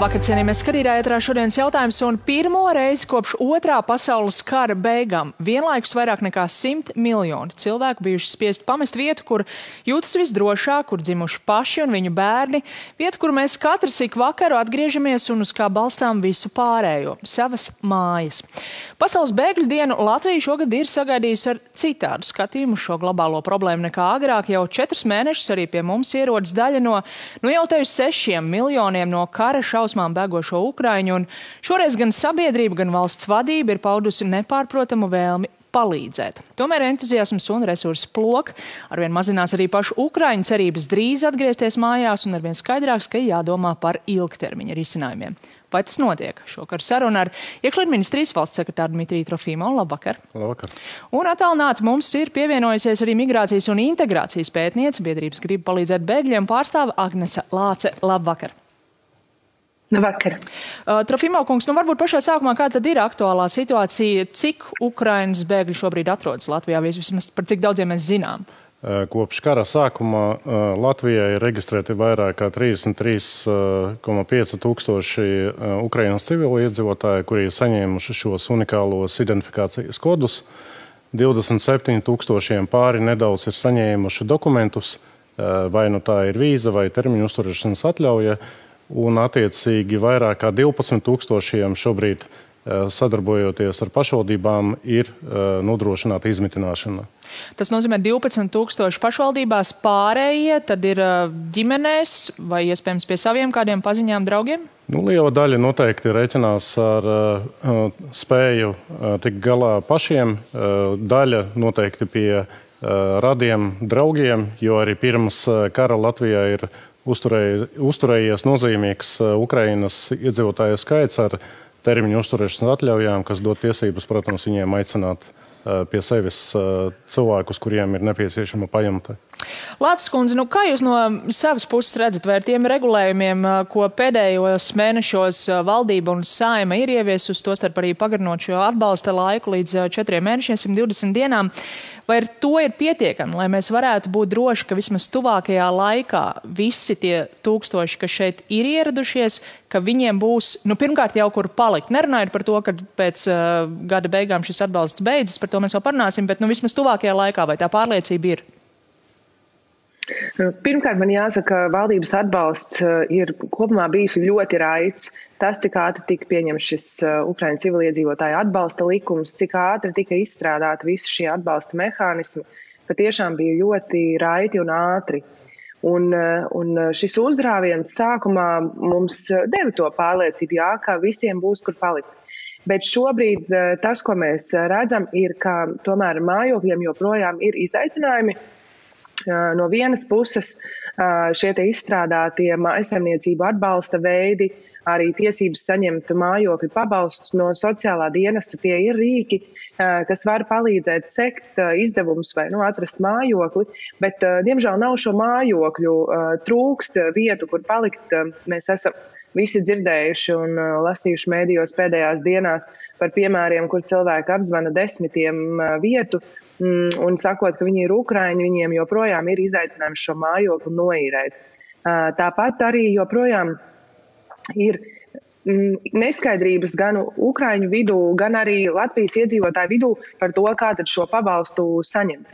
Labvakar, cienījamies skatītāji, ētrā šodienas jautājums, un pirmo reizi kopš Otrā pasaules kara beigām vienlaikus vairāk nekā 100 miljoni cilvēku bijuši spiest pamest vietu, kur jūtas visdrošāk, kur dzimuši paši un viņu bērni, vietu, kur mēs katrs ik vakaru atgriežamies un uz kā balstām visu pārējo – savas mājas. Pasaules bēgļu dienu Latvija šogad ir sagaidījusi ar citādu skatījumu šo globālo problēmu nekā agrāk. Jau 4 mēnešus arī pie mums ierodas daļa no, jau te uz 6 miljoniem no kara šausmām bēgošo Ukraiņu, un šoreiz gan sabiedrība, gan valsts vadība ir paudusi nepārprotamu vēlmi palīdzēt. Tomēr entuziasms un resursu plok arvien mazinās arī pašu Ukraiņu cerības drīz atgriezties mājās, un arvien skaidrāks, ka jādomā par ilgtermiņa risinājumiem. Vai tas notiek? Šokar saruna ar Iekšlietu ministrijas valsts sekretāru Dmitriju Trofimovu. Labvakar. Labvakar. Un attālināti mums ir pievienojusies arī migrācijas un integrācijas pētniece, biedrības grib palīdzēt bēgļiem pārstāve Agnese Lāce. Labvakar. Labvakar. Trofimov kungs, varbūt pašā sākumā, kā tad ir aktuālā situācija, cik Ukrainas bēgļi šobrīd atrodas Latvijā, vismaz par cik daudziem mēs zinām? Kopš kara sākuma Latvijā ir reģistrēti vairāk kā 33,5 tūkstoši Ukrainas civilu iedzīvotāji, kuri ir saņēmuši šos unikālos identifikācijas kodus. 27 tūkstošiem pāri nedaudz ir saņēmuši dokumentus, vai nu tā ir vīza vai termiņu uzturēšanas atļauja, un attiecīgi vairāk kā 12 tūkstošiem šobrīd sadarbojoties ar pašvaldībām ir nodrošināta izmitināšana. Tas nozīmē 12 tūkstoši pašvaldībās, pārējie tad ir ģimenēs vai iespējams pie saviem kādiem paziņām draugiem? Liela daļa noteikti reiķinās ar spēju tikt galā pašiem, daļa noteikti pie radiem draugiem, jo arī pirms kara Latvijā ir uzturējies nozīmīgs Ukrainas iedzīvotāju skaits ar termiņu uzturēšanas atļaujām, kas dod tiesības, protams, viņiem aicināt pie sevis cilvēkus, kuriem ir nepieciešama pajumte. Lāces kundze, kā jūs no savas puses redzat, vai ar tiem regulējumiem, ko pēdējos mēnešos valdība un Saeima ir ieviesusi, tostarp arī pagarinot šo atbalsta laiku līdz 4 mēnešiem, 120 dienām, vai ar to ir pietiekami, lai mēs varētu būt droši, ka vismaz tuvākajā laikā visi tie tūkstoši, kas šeit ir ieradušies, ka viņiem būs, pirmkārt jau kur palikt. Nerunājot par to, ka pēc gada beigām šis atbalsts beidzas, par to mēs vēl parunāsim, bet vismaz tuvākajā laikā, vai tā pārliecība ir? Pirmkārt, man jāsaka, valdības atbalsts ir kopumā bijis ļoti raids. Tas, cik ātri tika pieņemts šis Ukraiņu civiliedzīvotāju atbalsta likums, cik ātri tika izstrādāti visi šie atbalsta mehānismi, patiešām bija ļoti raiti un ātri. Un šis uzrāviens sākumā mums deva to pārliecību, ka visiem būs kur palikt. Bet šobrīd tas, ko mēs redzam, ir, ka tomēr mājokļiem joprojām ir izaicinājumi. No vienas puses šie te izstrādātie mājsaimniecību atbalsta veidi, arī tiesības saņemt mājokļu pabalstus no sociālā dienesta, tie ir rīki, kas var palīdzēt sekt izdevumus vai atrast mājokli, bet diemžēl nav šo mājokļu, trūkst vietu, kur palikt. Mēs esam visi dzirdējuši un lasījuši mēdījos pēdējās dienās par piemēriem, kur cilvēki apzvana 10 vietu un sakot, ka viņi ir Ukraiņi, viņiem joprojām ir izaicinājums šo mājokli noīrēt. Tāpat arī joprojām ir neskaidrības gan Ukraiņu vidū, gan arī Latvijas iedzīvotāju vidū par to, kā tad šo pabalstu saņemt.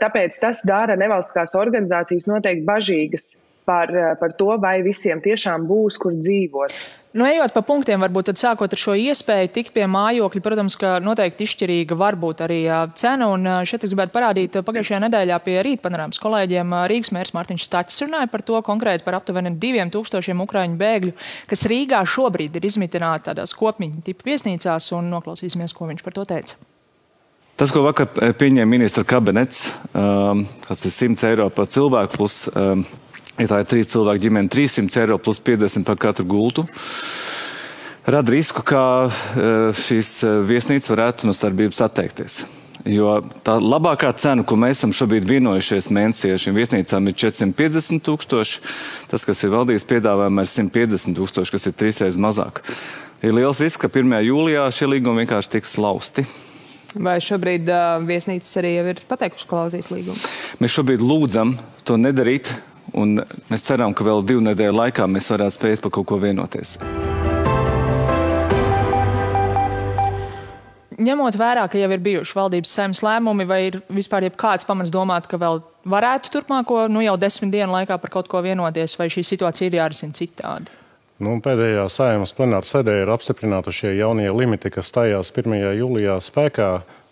Tāpēc tas dara nevalstiskās organizācijas noteikti bažīgas par to, vai visiem tiešām būs, kur dzīvot. Ejot pa punktiem, varbūt tad sākot ar šo iespēju tikt pie mājokļa, protams, ka noteikti izšķirīga var būt arī cena, un šeit es gribētu parādīt pagājušajā nedēļā pie Rīt panorāmas kolēģiem Rīgas mērs Mārtiņš Staķis runāja par to konkrēti par aptuveni 2000 Ukraiņu bēgļu, kas Rīgā šobrīd ir izmitināti tādās kopmiņu tipu viesnīcās, un noklausīsimies, ko viņš par to teica. Tas, ko vakar pieņēma ministra kabinets, kāds ir 100 eiro par cilvēku plus ja tā ir 3 cilvēku ģimene, 300 eiro plus 50 par katru gultu, rada risku, ka šīs viesnīcas varētu no starpības atteikties. Jo tā labākā cena, ko mēs esam šobrīd vienojušies mēnesī ar šīm viesnīcām, ir 450 000. Tas, kas ir valdības piedāvājumā, ir 150 000, kas ir 3 reizes mazāk. Ir liels risks, ka 1. jūlijā šie līgumi vienkārši tiks lausti. Vai šobrīd viesnīcas arī jau ir pateikuši klauzijas līgumu? Mēs šobrīd lūdzam to nedarīt. un mēs ceram, ka vēl 2 nedēļu laikā mēs varētu spēt par kaut ko vienoties. Ņemot vērā, ka jau ir bijuši valdības saeimas lēmumi, vai ir vispār jebkāds pamats domāt, ka vēl varētu turpmāko, jau 10 dienu laikā par kaut ko vienoties, vai šī situācija ir jārisina citādi? Pēdējā saeimas plenāra sēdē ir apstiprināti šie jaunie limiti, kas stājās 1. jūlijā spēkā.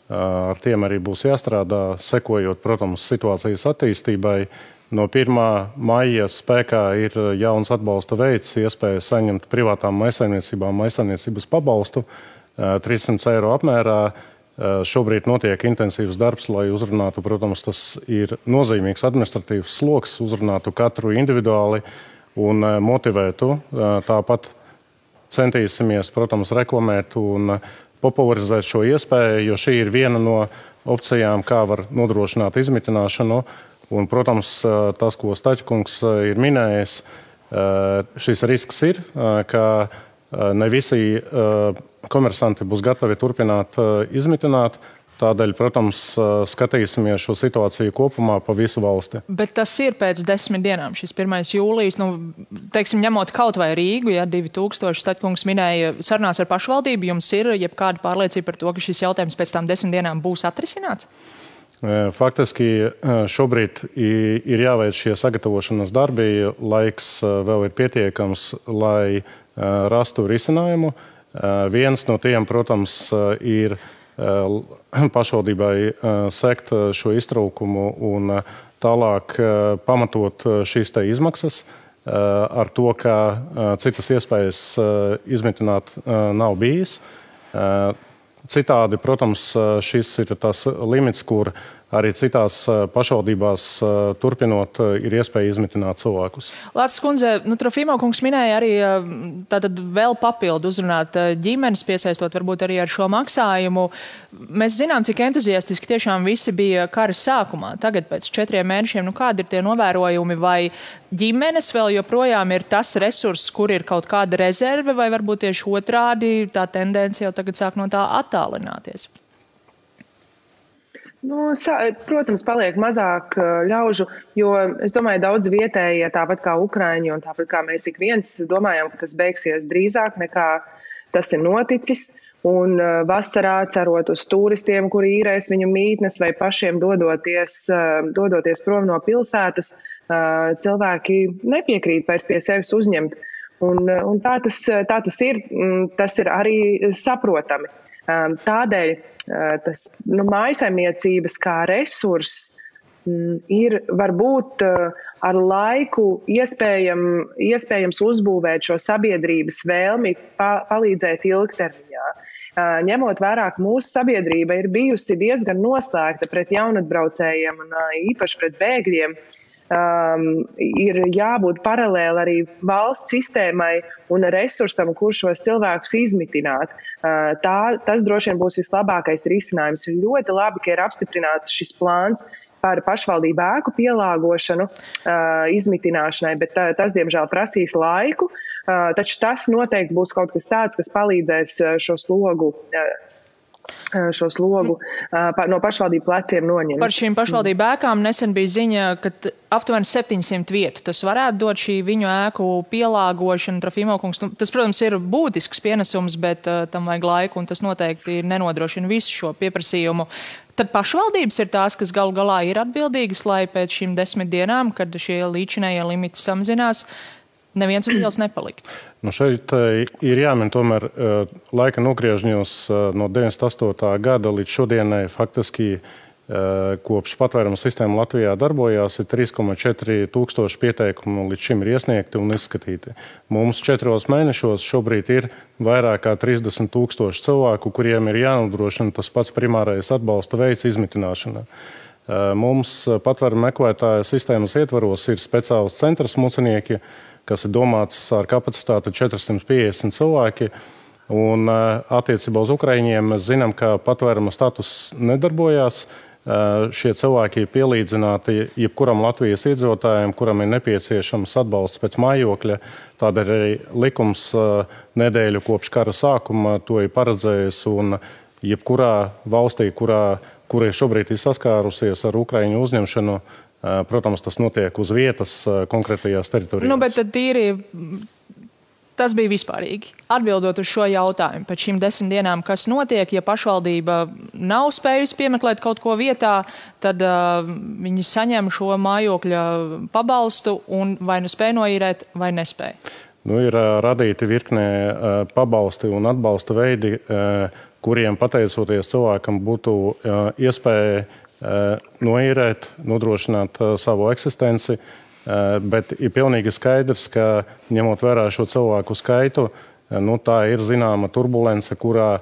Ar tiem arī būs jāstrādā, sekojot, protams, situācijas attīstībai. No 1. maija spēkā ir jauns atbalsta veids, iespēja saņemt privātām maisaimniecībām maisaimniecības pabalstu 300 eiro apmērā. Šobrīd notiek intensīvs darbs, lai uzrunātu, protams, tas ir nozīmīgs administratīvs sloks, uzrunātu katru individuāli un motivētu. Tāpat centīsimies, protams, reklamēt un popularizēt šo iespēju, jo šī ir viena no opcijām, kā var nodrošināt izmitināšanu. Un, protams, tas, ko Staķkungs ir minējis, šis risks ir, ka ne visi komersanti būs gatavi turpināt izmitināt. Tādēļ, protams, skatīsimies šo situāciju kopumā pa visu valsti. Bet tas ir pēc 10 dienām, šis 1. jūlijas, teiksim, ņemot kaut vai Rīgu, 2000, Staķkungs minēja sarunās ar pašvaldību, jums ir jebkāda pārliecība par to, ka šis jautājums pēc tām 10 dienām būs atrisināts? Faktiski šobrīd ir jāveic šie sagatavošanas darbi, laiks vēl ir pietiekams, lai rastu risinājumu. Viens no tiem, protams, ir pašvaldībai sekt šo iztraukumu un tālāk pamatot šīs te izmaksas ar to, ka citas iespējas izmitināt nav bijis. Citādi, protams, šis ir tas limits, kur arī citās pašvaldībās turpinot ir iespēja izmitināt cilvēkus. Lācis kundze, Trofimo kungs minēja arī tātad vēl papildu uzrunāt ģimenes, piesaistot varbūt arī ar šo maksājumu. Mēs zinām, cik entuziastiski tiešām visi bija kara sākumā. Tagad pēc 4 mēnešiem, kādi ir tie novērojumi, vai ģimenes vēl joprojām ir tas resurss, kur ir kaut kāda rezerve, vai varbūt tieši otrādi tā tendence jau tagad sāk no tā attālināties? Protams, paliek mazāk ļaužu, jo es domāju, daudz vietējie, tāpat kā Ukraiņi un tāpat kā mēs ik viens domājam, ka tas beigsies drīzāk nekā tas ir noticis. Un vasarā cerot uz turistiem, kuri īrēs viņu mītnes vai pašiem dodoties prom no pilsētas, cilvēki nepiekrīt vairs pie sevis uzņemt. Un tā tas ir, tas ir arī saprotami. Tādēļ tas mājasaimniecības kā resurss ir varbūt ar laiku iespējams uzbūvēt šo sabiedrības vēlmi palīdzēt ilgtermiņā. Ņemot vērā, ka mūsu sabiedrība ir bijusi diezgan noslēgta pret jaunatbraucējiem un īpaši pret bēgļiem, ir jābūt paralēli arī valsts sistēmai un resursam, kur šos cilvēkus izmitināt. Tas droši vien būs vislabākais risinājums. Ir ļoti labi, ka ir apstiprināts šis plāns par pašvaldību ēku pielāgošanu izmitināšanai, bet tas, diemžēl, prasīs laiku. Taču tas noteikti būs kaut kas tāds, kas palīdzēs šo slogu no pašvaldību pleciem noņemt. Par šīm pašvaldību ēkām nesen bija ziņa, ka aptuveni 700 vietu. Tas varētu dot šī viņu ēku pielāgošana, Trofimo kungs. Tas, protams, ir būtisks pienesums, bet tam vajag laiku, un tas noteikti nenodrošina visu šo pieprasījumu. Tad pašvaldības ir tās, kas galu galā ir atbildīgas, lai pēc šīm 10 dienām, kad šie līdzinējie limiti samazinās, neviens uz ielas nepalikt. Šeit ir jāmin tomēr laika nogriežņos no 98. gada līdz šodienai faktiski kopš patvēruma sistēma Latvijā darbojās, ir 3,4 tūkstoši pieteikumu līdz šim ir iesniegti un izskatīti. Mums 4 mēnešos šobrīd ir vairāk kā 30 tūkstoši cilvēku, kuriem ir jānodrošina tas pats primārais atbalsta veids izmitināšana. Mums patvēruma meklētāja sistēmas ietvaros ir speciāls centrs mucenieki, kas ir domāts ar kapacitāti 450 cilvēki. Un attiecībā uz Ukraiņiem mēs zinām, ka patvēruma status nedarbojās. Šie cilvēki ir pielīdzināti jebkuram Latvijas iedzīvotājiem, kuram ir nepieciešams atbalsts pēc mājokļa. Tādēļ arī likums nedēļu kopš kara sākuma to ir paredzējis. Un jebkurā valstī, kura šobrīd ir saskārusies ar Ukraiņu uzņemšanu, Protams, tas notiek uz vietas konkrētajās teritorijās. Bet tad tīri tas bija vispārīgi. Atbildot uz šo jautājumu, pēc šīm 10 dienām, kas notiek, ja pašvaldība nav spējusi piemeklēt kaut ko vietā, tad viņi saņem šo mājokļa pabalstu un vai nu spēj noīrēt, vai nespēj. Ir radīti virknē pabalsti un atbalsta veidi, kuriem pateicoties cilvēkam būtu iespēja noīrēt, nodrošināt savu eksistenci. Bet ir pilnīgi skaidrs, ka ņemot vērā šo cilvēku skaitu, tā ir zināma turbulence, kurā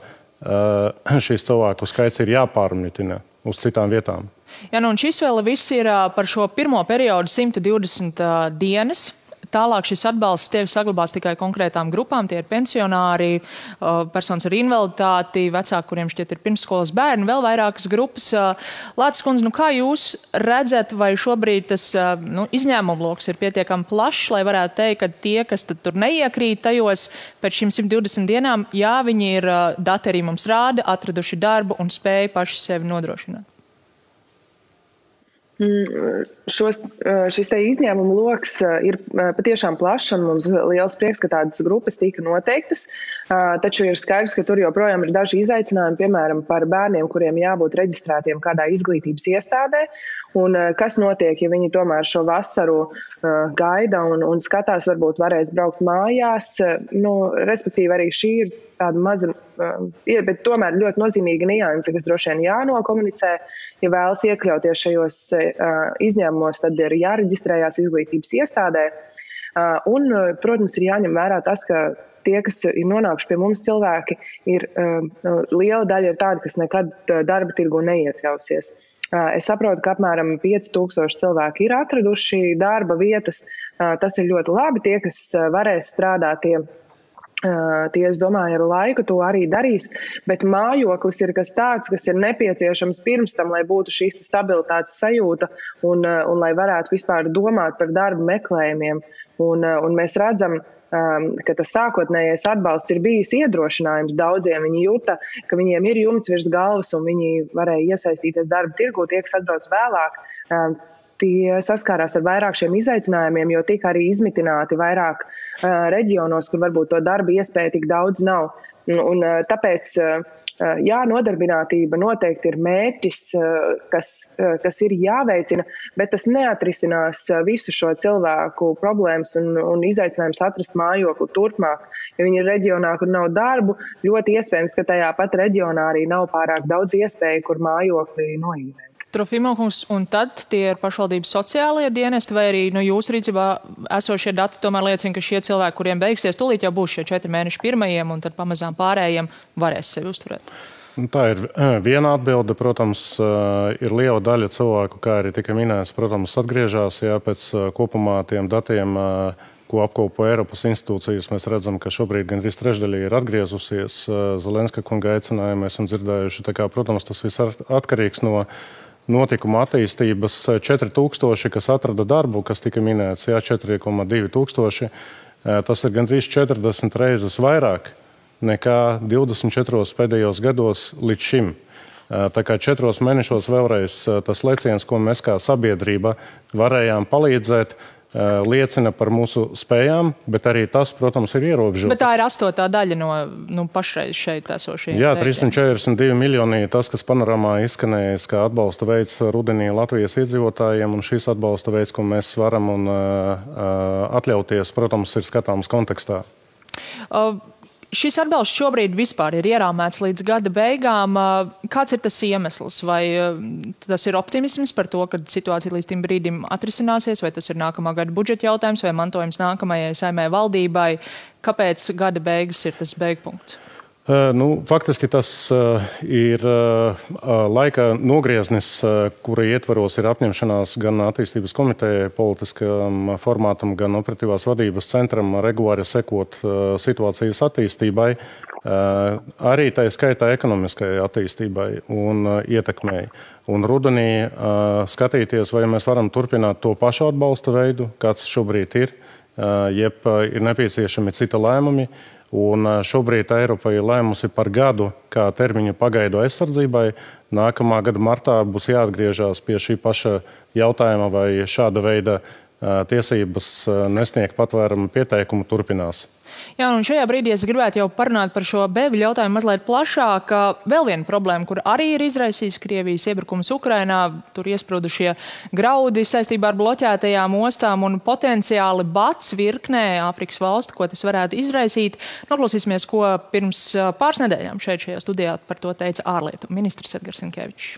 šīs cilvēku skaits ir jāpārmitina uz citām vietām. Jā, un šis vēl viss ir par šo pirmo periodu 120 dienas. Tālāk šis atbalsts tiek saglabāts tikai konkrētām grupām. Tie ir pensionāri, personas ar invaliditāti, vecāki, kuriem šķiet ir pirmsskolas bērni, vēl vairākas grupas. Lācis kundze, kā jūs redzat, vai šobrīd tas izņēmumu loks ir pietiekami plašs, lai varētu teikt, ka tie, kas tur neiekrīt tajos pēc šīm 120 dienām, jā, viņi ir, dati arī mums rāda, atraduši darbu un spēju paši sevi nodrošināt? Šis te izņēmumu loks ir patiešām plašs un mums liels prieks, ka tādas grupas tika noteiktas, taču ir skaidrs, ka tur joprojām ir daži izaicinājumi, piemēram, par bērniem, kuriem jābūt reģistrētiem kādā izglītības iestādē, un kas notiek, ja viņi tomēr šo vasaru gaida un skatās, varbūt varēs braukt mājās, respektīvi arī šī ir tāda maza, bet tomēr ļoti nozīmīga nianse, kas droši vien jānokomunicē. Ja vēlas iekļauties šajos izņēmumos, tad ir jāreģistrējās izglītības iestādē. Un, protams, ir jāņem vērā tas, ka tie, kas ir nonākuši pie mums cilvēki, liela daļa ir tādi, kas nekad darba tirgu neiekļausies. Es saprotu, ka apmēram 5000 cilvēki ir atraduši darba vietas. Tas ir ļoti labi. Tie, kas varēs strādāt, tie, es domāju, ar laiku to arī darīs, bet mājoklis ir kas tāds, kas ir nepieciešams pirms tam, lai būtu šīs stabilitātes sajūta un lai varētu vispār domāt par darba meklējumiem. Un mēs redzam, ka tas sākotnējais atbalsts ir bijis iedrošinājums daudziem. Viņi jūta, ka viņiem ir jumts virs galvas un viņi varēja iesaistīties darba tirgū, tie, kas atbrauc vēlāk. Tie saskārās ar vairāk šiem izaicinājumiem, jo tika arī izmitināti vairāk reģionos, kur varbūt to darba iespēja tik daudz nav. Un tāpēc, jā, nodarbinātība noteikti ir mērķis, kas ir jāveicina, bet tas neatrisinās visu šo cilvēku problēmas un izaicinājums atrast mājokli turpmāk. Ja viņi ir reģionā, kur nav darbu, ļoti iespējams, ka tajā pat reģionā arī nav pārāk daudz iespēju, kur mājokli noīrēt. Trofimovkungs, un tad tie ir pašvaldības sociālie dienesti, vai arī jūsu rīcībā esošie dati tomēr liecina, ka šie cilvēki, kuriem beigsies, tūlīt jau būs šie 4 mēneši pirmajiem, un tad pamazām pārējiem varēs sevi uzturēt? Tā ir viena atbilde. Protams, ir liela daļa cilvēku, kā arī tika minēts, protams, atgriežās, pēc kopumā tiem datiem, ko apkopo Eiropas institūcijas. Mēs redzam, ka šobrīd gandrīz trešdaļa ir atgriezusies. Zelenska kunga aicinājumu esam dzirdējuši. Tā kā, protams, tas viss atkarīgs no notikuma attīstības. 4000, kas atrada darbu, kas tika minēts, 4,2 tūkstoši. Tas ir gandrīz 40 reizes vairāk nekā 24 pēdējos gados līdz šim. Tā kā 4 mēnešos vēlreiz tas leciens, ko mēs kā sabiedrība varējām palīdzēt, liecina par mūsu spējām, bet arī tas, protams, ir ierobežots. Bet tā ir 8. daļa no pašreiz šeit esošiem. Jā, 342 miljoni tas, kas panorāmā izskanējis, kā atbalsta veids rudenī Latvijas iedzīvotājiem, un šis atbalsta veids, ko mēs varam un atļauties, protams, ir skatāms kontekstā. Šis atbalsts šobrīd vispār ir ierāmēts līdz gada beigām. Kāds ir tas iemesls? Vai tas ir optimisms par to, ka situācija līdz tim brīdim atrisināsies, vai tas ir nākamā gada budžeta jautājums, vai mantojums nākamajai Saeimai valdībai? Kāpēc gada beigas ir tas beigpunkts? Faktiski tas ir laika nogrieznis, kura ietvaros ir apņemšanās gan attīstības komitejai, politiskam formātam, gan operatīvās vadības centram regulāri sekot situācijas attīstībai, arī tā skaitā ekonomiskajai attīstībai un ietekmei. Un rudenī skatīties, vai mēs varam turpināt to pašu atbalsta veidu, kāds šobrīd ir, jeb ir nepieciešami cita lēmumi. Un šobrīd Eiropa ir lēmusi par gadu kā termiņu pagaidu aizsardzībai. Nākamā gada martā būs jāatgriežas pie šī paša jautājuma, vai šāda veida tiesības nesniegt patvērumu pieteikumu turpinās. Jā, un šajā brīdī es gribētu jau parunāt par šo bēgļu jautājumu mazliet plašāk. Vēl viena problēma, kur arī ir izraisījis Krievijas iebrukums Ukrainā, tur iesprūdušie graudi saistībā ar bloķētajām ostām un potenciāli bats virknē Āfrikas valstu, ko tas varētu izraisīt. Noklausīsimies, ko pirms pāris nedēļām šajā studijā par to teica ārlietu ministrs Edgars Rinkevičs.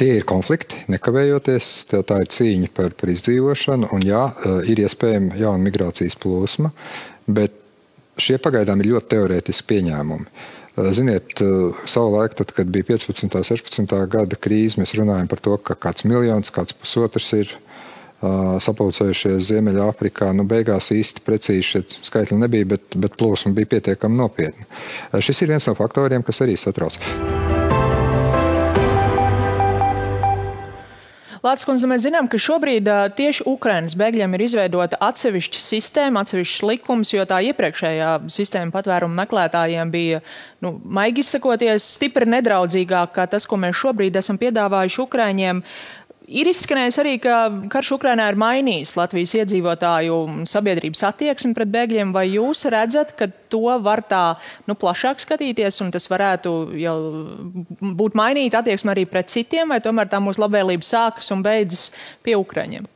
Tie ir konflikti, nekavējoties, tā ir cīņa par izdzīvošanu, un jā, ir iespējama jauna migrācijas plūsma, bet šie pagaidām ir ļoti teorētiski pieņēmumi. Ziniet, savulaik, tad, kad bija 15. 16. gada krīze, mēs runājam par to, ka kāds miljons, kāds pusotrs ir sapulcējušies Ziemeļāfrikā. Beigās īsti precīzi šie skaitļi nebija, bet plūsma bija pietiekami nopietna. Šis ir viens no faktoriem, kas arī satrauc. Lācis kundze, mēs zinām, ka šobrīd tieši Ukrainas bēgļiem ir izveidota atsevišķa sistēma, atsevišķs likums, jo tā iepriekšējā sistēma patvērumu meklētājiem bija, maigi izsakoties, stipri nedraudzīgāk kā tas, ko mēs šobrīd esam piedāvājuši Ukraiņiem. Ir izskanējis arī, ka karš Ukrainā ir mainījis Latvijas iedzīvotāju sabiedrības attieksmi pret bēgļiem. Vai jūs redzat, ka to var tā plašāk skatīties un tas varētu jau būt mainīt attieksmi arī pret citiem, vai tomēr tā mūsu labvēlība sākas un beidzas pie Ukraiņiem?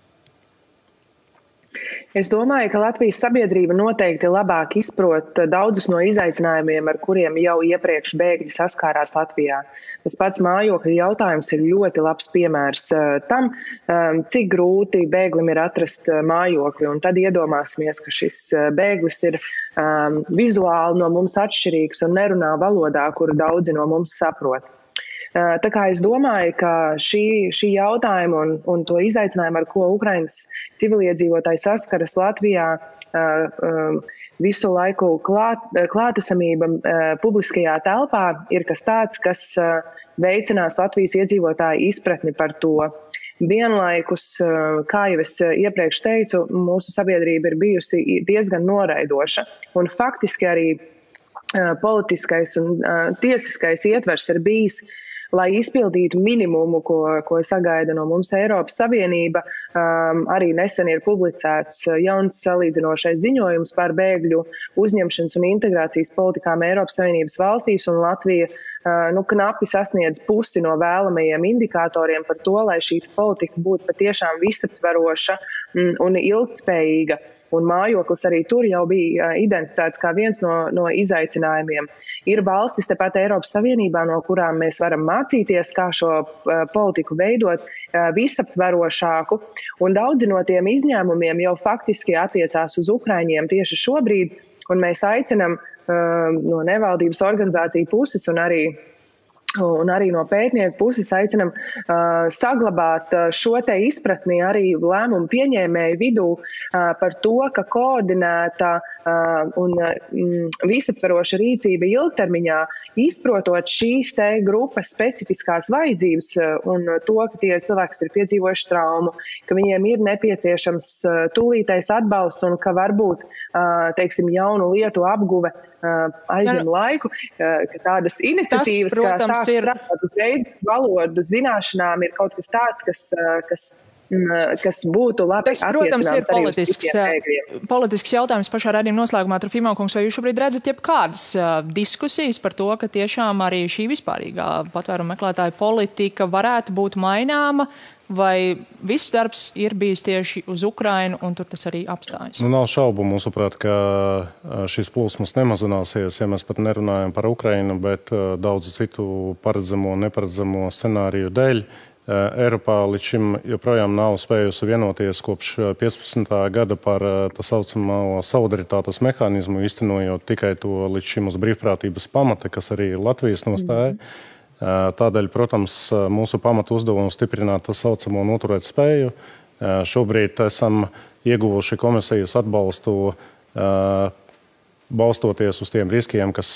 Es domāju, ka Latvijas sabiedrība noteikti labāk izprot daudzus no izaicinājumiem, ar kuriem jau iepriekš bēgļi saskārās Latvijā. Tas pats mājokļu jautājums ir ļoti labs piemērs tam, cik grūti bēglim ir atrast mājokli. Un tad iedomāsimies, ka šis bēglis ir vizuāli no mums atšķirīgs un nerunā valodā, kuru daudzi no mums saprot. Tā kā es domāju, ka šī jautājuma un to izaicinājumu, ar ko Ukrainas civiliedzīvotāji saskaras Latvijā, visu laiku klātesamība publiskajā telpā ir kas tāds, kas veicinās Latvijas iedzīvotāju izpratni par to. Vienlaikus, kā jau es iepriekš teicu, mūsu sabiedrība ir bijusi diezgan noraidoša. Un faktiski arī politiskais un tiesiskais ietvers ir bijis, lai izpildītu minimumu, ko sagaida no mums Eiropas Savienība. Arī nesen ir publicēts jauns salīdzinošais ziņojums par bēgļu uzņemšanas un integrācijas politikām Eiropas Savienības valstīs, un Latvija knapi sasniedz pusi no vēlamajiem indikatoriem par to, lai šī politika būtu patiešām visaptveroša un ilgtspējīga. Un mājoklis arī tur jau bija identificēts kā viens no izaicinājumiem. Ir valstis tepat Eiropas Savienībā, no kurām mēs varam mācīties, kā šo politiku veidot visaptverošāku. Un daudzi no tiem izņēmumiem jau faktiski attiecās uz Ukraiņiem tieši šobrīd. Un mēs aicinam no nevaldības organizāciju puses un arī no pētnieku puses aicinam saglabāt šo te izpratni arī lēmumu pieņēmēju vidū par to, ka koordinēta un visaptveroša rīcība ilgtermiņā, izprotot šīs te grupas specifiskās vajadzības un to, ka tie cilvēki, kas ir piedzīvojuši traumu, ka viņiem ir nepieciešams tūlītais atbalsts un ka varbūt, jaunu lietu apguve aizņem laiku, ka tādas iniciatīvas, kā sāk strādāt uzreiz pēc valodas zināšanām, ir kaut kas tāds, kas būtu labi attiecināms arī uz citiem bēgļiem. Politisks jautājums pašā raidījuma noslēgumā, Trofimov kungs, vai jūs šobrīd redzat jebkādas diskusijas par to, ka tiešām arī šī vispārīgā patvērumu meklētāju politika varētu būt maināma, vai viss darbs ir bijis tieši uz Ukrainu un tur tas arī apstājas? Nav šaubu, mūsuprāt, ka šīs plūsmas nemazināsies, ja mēs pat nerunājam par Ukrainu, bet daudzu citu paredzamo un neparedzamo scenāriju dēļ. Eiropā līdz šim joprojām nav spējusi vienoties kopš 15. gada par tā saucamo solidaritātes mehānismu, īstenojot tikai to līdz šim uz brīvprātības pamata, kas arī ir Latvijas nostāja. Tādēļ, protams, mūsu pamatu uzdevumu stiprināt tā saucamo noturēt spēju. Šobrīd esam ieguvuši komisijas atbalstu, balstoties uz tiem riskiem, kas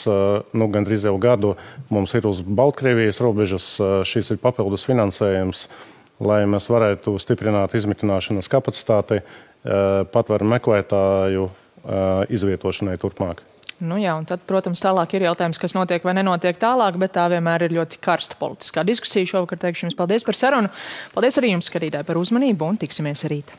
gandrīz jau gadu mums ir uz Baltkrievijas robežas. Šis ir papildus finansējums, lai mēs varētu stiprināt izmitināšanas kapacitāti patvērumu meklētāju izvietošanai turpmāk. Nu jā, un tad, protams, tālāk ir jautājums, kas notiek vai nenotiek tālāk, bet tā vienmēr ir ļoti karsta politiskā diskusija. Šovakar teikšu jums paldies par sarunu. Paldies arī jums, skatītāji, par uzmanību un tiksimies rīt.